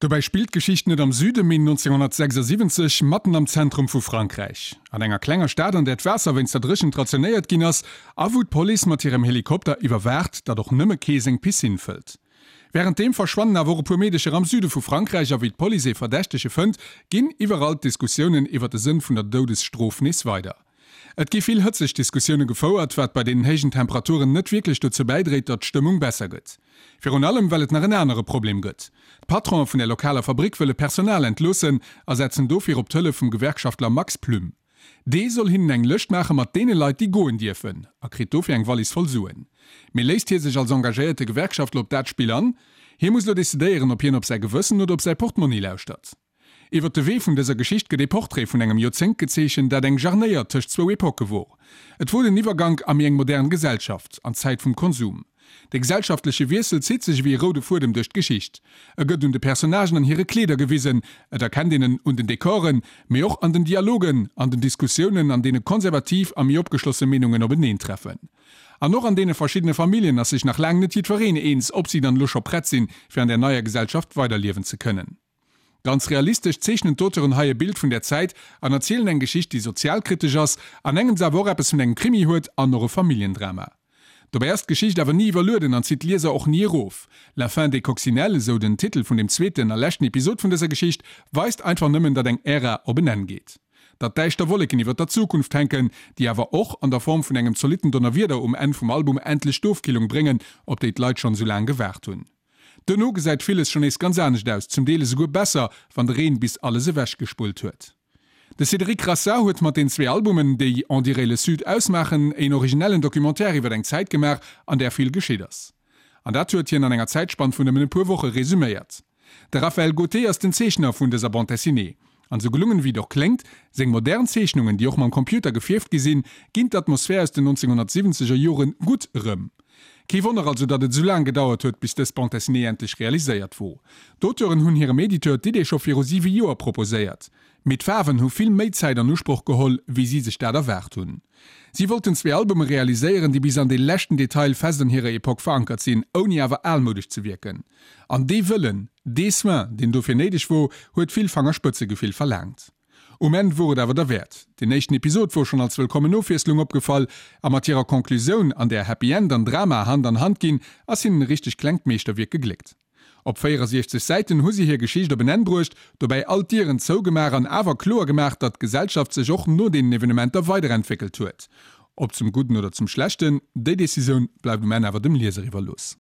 Dobäi spillt d'Geschicht net am Süden, mee 1976, matten am Zentrum vu Frankräich. An enger klenger Stad, an där d'Waasser wéinst der Dréchent rationéiert ginn ass a wou d'Police mat hirem Helikopter iwwerwaacht, datt och nëmme kee seng Piscine fëllt. Wärenddeem verschwannen awer och e puer Meedecher am Süde vu Frankräich a wéi d'Police ee Verdächtege fënnt, ginn iwwerall d'Diskussiounen iwwer de Sënn vun der Doudesstrof nees weider. Et gi vill hëtzeg Diskussioune gefouert, wat bei deenen héijen Temperaturen net wierklech dozou bäidréit, datt d'Stëmmung besser gëtt. Virun allem, well et nach en anere Problem gëtt. D'Patronen vun der lokaler Fabrick wëlle Personal entloossen a setzen dofir op d'Hëllef vum Gewerkschaftler Max Plüm. Dee soll hinnen eng Lëscht maache mat deene Leit, déi goen dierfen, a kritt dofir eng Wallis voll Suen. Mee léisst hie sech als engagéierte Gewerkschaftler op dat Spill an? Hie muss elo decidéieren, ob hien op säi Gewëssen oder op säi Portmonni lauschtert. Iwwer de Wee vun dëser Geschicht gëtt ee Portrait vun engem Joerzéngt gezeechent, dat eng Jarnéier tëscht zwou Epoche wor. Et wor den Iwwergank a méi eng modern Gesellschaft, an d'Zäit vum Konsum. De gesellschaftleche Wiessel zitt sech ewéi e roude Fuedem duerch d'Geschicht. E gëtt un de Personnagen an hire Kleeder gewisen, et erkennt een en un den Dekoren, mee och an den Dialogen, an den Diskussiounen, an deene konservativ a méi opgeschlosse Meenungen openeentreffen. An och an deene verschiddene Familljen ass sech nach laang net jiddwereen eens, ob si dann elo scho prett sinn, fir an där neier Gesellschaft weiderliewen ze kënnen. Ganz realistesch zeechnen d'Auteuren hei e Bild vun där Zäit an erzielen eng Geschicht, déi sozialkritesch ass, an engems awer och eppes vun engem Krimi huet an och e Familljendrama. Dobäi ass d'Geschicht awer ni iwwerlueden an zitt d'Lieser och ni erof. La fin des coccinelles, esou den Titel vun dem zweeten a leschten Episod vun dëser Geschicht, weist einfach nëmmen, datt eng Ära op en Enn geet. Datt däischter Wolleken iwwer der Zukunft hänken, déi awer och an der Form vun engem zolitten Donnerwieder um Enn vum Album endlech d'Ofkillung bréngen, op déi d'Leit schonn esou laang gewaart hunn. Duerno gesäit villes schonn nees ganz anescht aus, zum Deel esouguer besser, wann de Reen bis alles ewech gespullt huet. De Cédric Rassat huet mat den zwee Albumen, déi On dirait le Sud ausmaachen, een originellen Documentaire iwwer eng Zäit gemaach, an där vill geschitt ass. An dat huet hien an enger Zäitspann vun nëmmen e puer Woche resuméiert. De Raphaël Gauthier ass den Zeechner vun dëser Bande dessinée. An esou gelungen ewéi et och kléngt, seng modern Zeechnungen, déi och mam Computer gefierft gi sinn, ginn d'Atmosphär aus den 1970 er Joren gutt erëm. Kee Wonner also, datt et esou laang gedauert huet, bis dës Bande dessinée endlech realiséiert wor. D'Auteuren hunn hirem Editeur d'Idee scho viru siwe Joer proposéiert. Mee d'Faarwen hu vill méi Zäit an Usproch geholl, wéi si sech dat erwaart hunn. Si wollten zwee Albume realiséieren, déi bis an dee leschten Detail fest an hirer Epoque verankert sinn, ouni awer almoudesch ze wierken. An dee Wëllen, dee Soin, deen dofir néideg wor, huet vill Fangerspëtzegefill verlaangt. Um Enn wor et awer derwäert. Deen éischten Episod wor schonn als wëllkommen Ofwiesslung opgefall, a mat hirer Conclusioun, an där Happy End an Drama Hand an Hand ginn, ass hinnen e richteg klengt Meeschterwierk gegléckt. Op 64 Säiten hu si hir Geschicht op en Enn bruecht, dobäi all d'Dieren zougemaach an awer kloer gemaach, datt d'Gesellschaft sech och no deenen Evenementer weiderentwéckelt huet. Ob zum Gudden oder zum Schlechten, déi Decisioun bleift um Enn awer dem Lieser iwwerlooss.